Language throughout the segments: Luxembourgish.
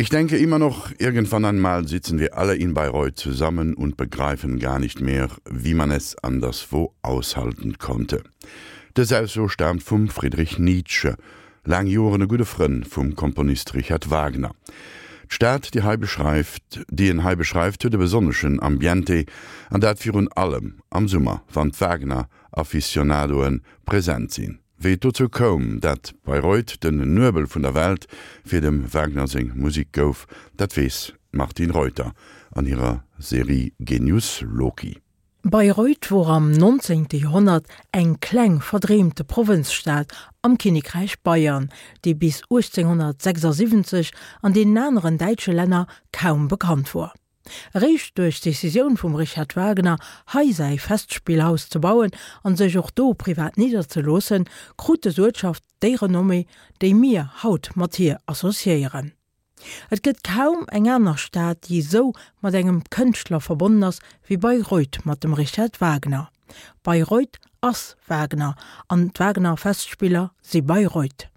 Ich denke immer noch, irgendwann einmal sitzen wir alle in Bayreuth zusammen und begreifen gar nicht mehr, wie man es anderswo aushalten konnte. Dës Ausso staamt vum Friedrich Nietzsche, laang Joren e gudde Frënn vum Komponist Richard Wagner. D'Stad, déi hei beschreift, déi en hei beschreift, huet e besonneschen Ambiente, an dat virun allem am Summer, wann d'Wagner-Aficionadoe present sinn. Wéi et dozou koum, dat Bayreuth den Nuebel vun der Welt fir dem Wagner seng Musik gouf, dat weess d'Martine Reuter an hirer Serie Genius Loci. Bayreuth wor am 19. Joerhonnert eng kleng verdreemte Provënzstad am Kinnekräich Bayern, déi bis 1876 an deenen aneren däitsche Länner kaum bekannt wor. Eréischt duerch d'Decisioun vum Richard Wagner, hei säi Festspillhaus ze bauen an sech och do privat nidderzeloossen, krut des Uertschaft déi Renommée, déi mir haut mat hir associéieren. Et gëtt kaum eng aner Stad, déi esou mat engem Kënschtler verbonnen ass wéi Bayreuth mat dem Richard Wagner. Bayreuth ass Wagner an d'Wagner-Festspiller si Bayreuth.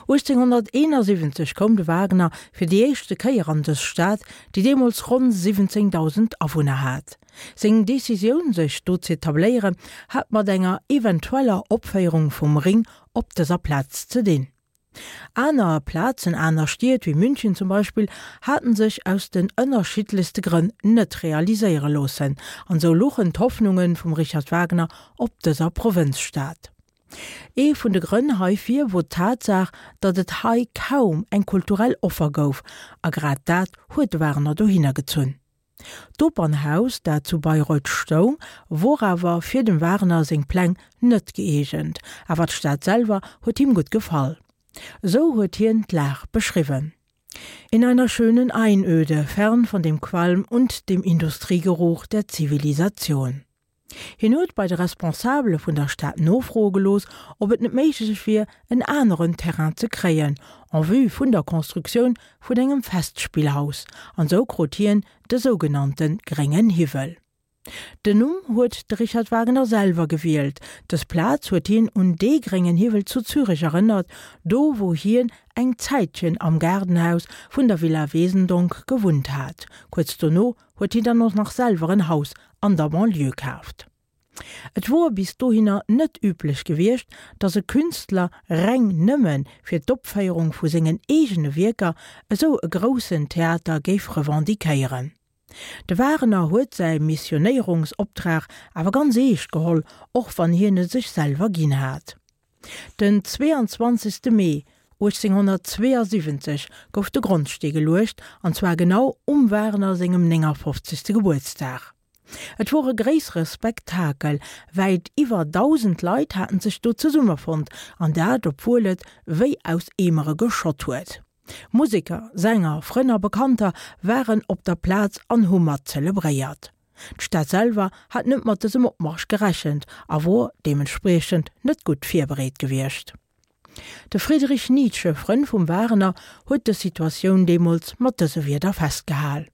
1871 koum de Wagner fir déi éischte Kéier an dës Stad, déi deemools ronn 17.000 Awunner hat. Seng Decisioun, sech do z'etabléieren, hat mat enger eventueller Opféierung vum Ring op dëser Plaz ze dinn. Aner Plazen, aner Stied wéi München zum Beispill, haten sech aus den ënnerschiddlechste Grënn net realiséiere loossen, an sou luchen d'Hoffnunge vum Richard Wagner op dëser Provënzstad. Ee vun de Grënn heifir wor d'Tatsaach, datt et hei kaum eng kulturell Offer gouf, a grad dat huet de Wagner dohinner gezunn. D'Opernhaus, dat zu Bayreuth stoung, wor awer fir dem Wagner seng Pläng net gëeegent, awer d'Stad selwer huet him gutt gefall. Esou huet hien d'Lag beschriwwen, In einer schönen Einöde, fern von dem Qualm und dem Industriegeruch der Zivilisation. Hien huet bei de Responsabele vun der Stad nofroe gelooss, ob et net méiglech wier, en aneren Terrain ze kréien, en vue vun der Constructioun vun engem Festspillhaus, an esou krut hien de sougenannte gréngen Hiwwel. Den Numm huet de Richard Wagner selwer gewielt. Dës Plaz huet hien un dee gréngen Hiwwel zu Zürech erënnert, do wou hien eng Zäitchen am Gaardenhaus vun der Villa Wesendonck gewunnt hat. Kuerz dono huet hien dann och nach selwer en Haus an der Banlieue kaaft. Et wor bis dohinner net üblech gewiescht, datt e Künstler reng nëmme fir d'Opféierung vu sengen eegene Wierker esou e groussen Theater géif revendiquéieren. De Wagner huet säi Missionéierungsoptrag awer ganz eescht geholl, och wann hien e sech selwer ginn hat. Den 22. Mee 1872 gouf de Grondstee geluecht, an zwar genau um Wagner sengem 59. Gebuertsdag. Et wor e gréissere Spektakel, wäit iwwer 1.000 Leit haten sech do zesummefonnt, an dat obwuel et wéi aus Eemere geschott huet. Museker, Sänger, Frënn a Bekannter waren op der Plaz an hu mat zelebréiert. D'Stad selwer hat net mat dësem Opmarsch gerechent a wor deementspriechend net gutt virbereet gewiescht. De Friedrich Nietzsche, Frënn vum Wagner, huet dës Situatioun deemools mat dëse Wierder festgehal,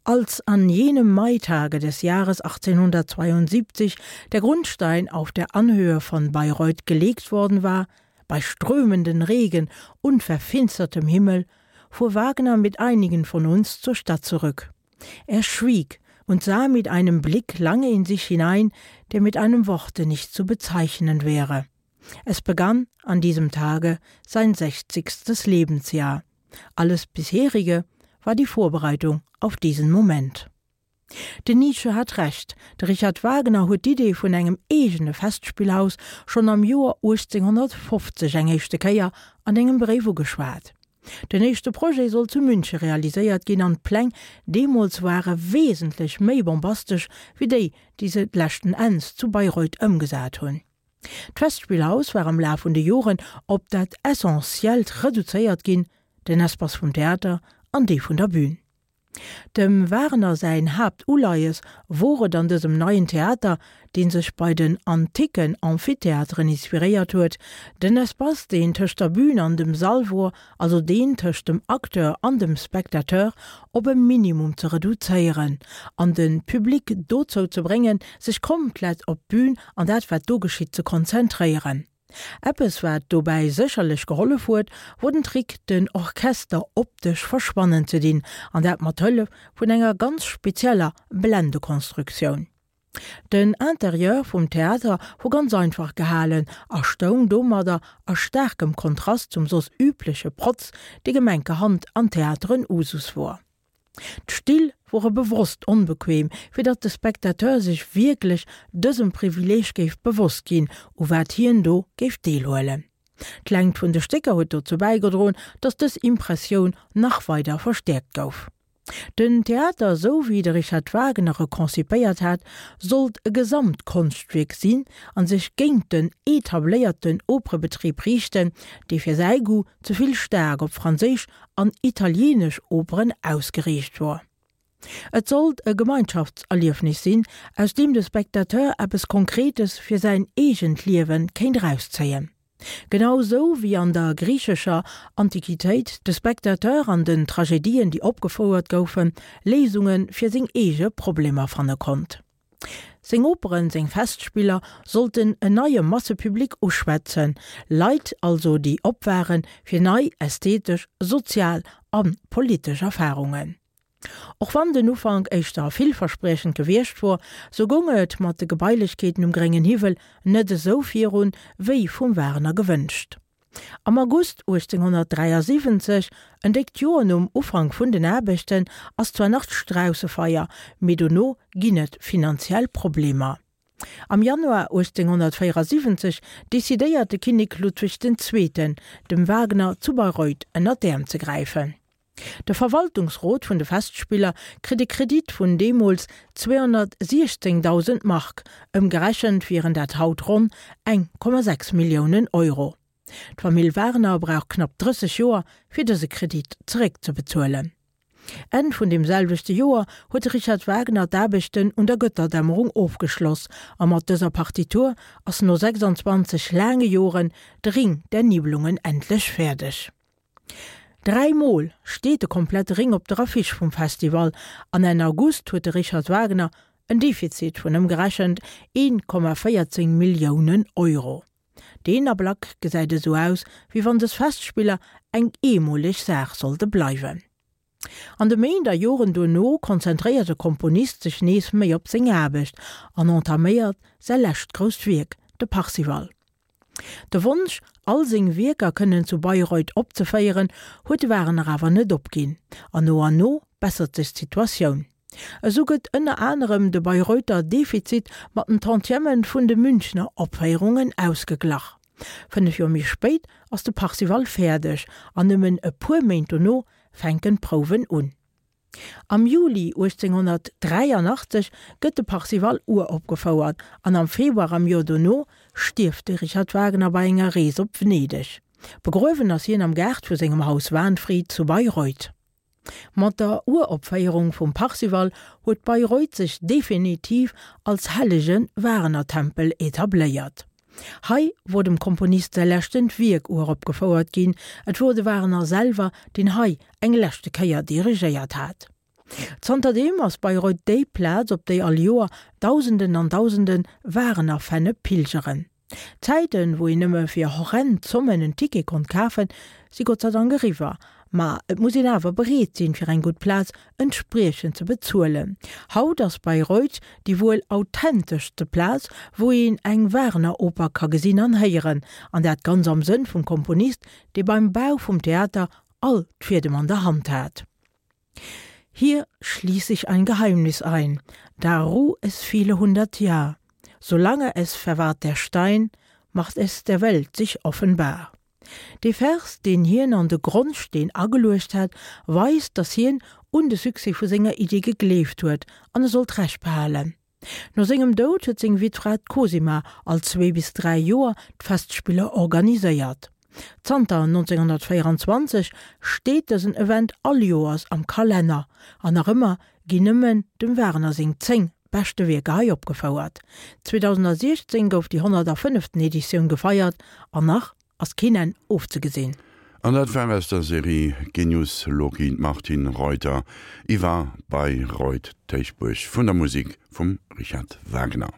Als an jenem Maitage des Jahres 1872 der Grundstein auf der Anhöhe von Bayreuth gelegt worden war, bei strömenden Regen und verfinstertem Himmel, fuhr Wagner mit einigen von uns zur Stadt zurück. Er schwieg und sah mit einem Blick lange in sich hinein, der mit einem Worte nicht zu bezeichnen wäre. Es begann an diesem Tage sein sechzigstes Lebensjahr. Alles bisherige war die Vorbereitung auf diesen Moment. Den Nietzsche hat Recht, de Richard Wagner huet d'Idee vun engem eegene Festspillhaus schonn am Joer 1850 eng éischte Kéier an engem Bréif ugeschwat. Den éischte Projet sollt zu Münche realiséiert ginn an d'Pläng deemools ware wesentlech méi bombastesch wéi déi, déi se leschten Enns zu Bayreuth ëmgesat hunn. D'Festspillhaus war am Laf vun de Joren op dat Essentiellt reduzéiert ginn, den Espace vum Theater an dee vun der Bün. Dem Wagner säin Haaptuleies wor et an dësem neien Theater, dee sech bei den anticken Amphitheateren inspiréiert huet, den Espace deen tëscht der Bün an dem Sall wor, also deen tëscht dem Acteur an dem Spectateur, op e Minimum ze reduzéieren an de Public dozou ze bréngen, sech komplett op d'Bün an dat wat do geschitt ze konzentréieren. Eppes wat dobäi sécherlech gehollef huet, wor den Trick den Orchester optesch verschwannen ze dinn, an dat mat Hëllef vun enger ganz spezieller Blendekonstruktioun. Den Interieur vum Theater wor ganz einfach gehalen a stoung domadder a staarkem Kontrast zum soss übleche Protz, dee gemenkerhand an Theateren Usus wor. D'Still wore bewosst onbequem, fir datt de Spectateur sech wierklech dësem Privileeg géif bewosst ginn, u wat hien do géif deelhuelen. D'Längt vun de Stécker huet dozou bäigedroen, datt dës Impressioun nach weider verstäerkt gouf. Den Theater, esou wéi de Richard Wagner e konzipéiert hat, sollt e Gesamtkonschtwierk sinn a sech géint den etabléierten Operebetrib riichten, dee fir säi Goût ze vill staark op franséisch an italieenesch Operen ausgeriicht wor. Et sollt e Gemeinschaftserliefnis sinn, aus deem de Spectateur eppes Konkretes fir säin eegent Liewe kéint erauszéien. Genau sou wéi an der griichescher Antiquitéit de Spectateur an den Tragedien, déi opgefouert goufen, Léisunge fir seng eege Problemer fanne konnt. Seng Operen, seng Festspiller sollten en neie Massepublic uschwätzen, Leit also déi op ware fir nei ästhetesch, sozial a politesch Erfarungen. Och wann den Ufank éischter villverspriechend gewiescht wor, sou goung et mat de Gebailechkeeten um Gréngen Hiwwel net esou virun, wéi vum Wagner gewënscht. Am August 1873, en déckt Joer nom Ufank vun den Aarbechten, ass zwar nach d'Straussefeier, mee dono ginn et finanziell Problemer. Am Januar 1874 decidéiert de Kinnek Ludwig den Zweeten, dem Wagner zu Bayreuth ënner d'Äerm ze gräifen. De Verwaltungsrot vun de Festspiller kritt e Kredit vun deemools 216.000 Mark, ëmgerechent wieren dat haut ronn 1,6 Milliounen Euro. D'Famill Wagner brauch knapp 30 Joer, fir dëse Kredit zeréckzebezuelen. Enn vun deem selwechte Joer huet de Richard Wagner d'Aarbechten un der Götterdämmerung ofgeschloss a mat dëser Partitur ass no 26 laange Joren de Ring der Nibelungen endlech fäerdeg. Dräi Mol steet de komplette Ring op der Affiche vum Festival an Enn August huet de Richard Wagner en Defizit vun ëmgerechent 1,14 Milliounen Euro. Deen Ablack gesäit esou aus, wéi wann dës Festspiller eng eemoleg Saach sollte bleiwen. An de Méint a Joren duerno konzentréiert de Komponist sech nees méi op seng Aarbecht an entaméiert säi lescht grousst Wierk, de Parsifal. De Wonsch, all seng Wierker kënnen zu Bayreuth opzeféieren, huet de Wagner awer net opginn, an no an no bessert sech d'Situatioun. Esou gëtt ënner anerem de Bayreuther Defizit mat den Tantièmen vun de Münchner Opféierungen ausgeglach. 5 Joer méi spéit ass de Parsifal fäerdeg, an nëmmen e puer Méint dono fänken d'Prouwen un. Am Juli 1883 gëtt de Parsifal uropgefouert an am Februar am Joer dono stierft de Richard Wagner bei enger Rees op Venedeg. Begruewen ass hien am Gaart vu sengem Haus Wahnfried zu Bayreuth. Mat der Uropféierung vum Parsifal huet Bayreuth sech definitiv als hellege Wagner-Tempel etabléiert. Hei wor dem Komponist säi leschtent Wierk uropgefouert ginn, et wor de Wagner selwer, deen hei eng leschte Kéier dirigéiert hat. Zanterdeem ass Bayreuth déi Plaz, op déi all Joer Dausenden an Dausende Wagner-Fenne pilgeren. D'Zäiten, wou een nëmme fir horrend Zommen en Ticket konnt kafen, si Gott sei Dank eriwwer. Ma et muss een awer bereet sinn, fir eng gutt Plaz entspriechend ze bezuelen. Haut ass Bayreuth déi wuel authenteschste Plaz, wou een eng Wagner-Oper ka gesinn an héieren, an dat ganz am Sënn vum Komponist, dee beim Bau vum Theater all d'Fiedem an der Hand hat. Hier schließ ich ein Geheimnis ein, da ruh es viele hundert Jahr, solange es verwahrt der Stein, macht es der Welt sich offenbar. Dee Vers, deen hien an de Grondsteen ageluecht hat, weist, datt hien un de Succès vu senger Idee gegleeft huet an e sollt Recht behalen. No sengem Doud huet seng Wittfra d'Cosima all zwee bis dräi Joer d'Festspiller organiséiert. Zanter 1924 steet dësen Event all Joers am Kalenner an nach ëmmer ginn nëmmen dem Wagner seng 10 beschte Wierker hei opgefouert. 2016 gouf déi 105. Editioun gefeiert an nach ass keen Enn ofzegesinn. An dat war aus der Serie Genius Loci d'Martine Reuter iwwer Bayreuth, d'Héichbuerg vun der Musik vum Richard Wagner.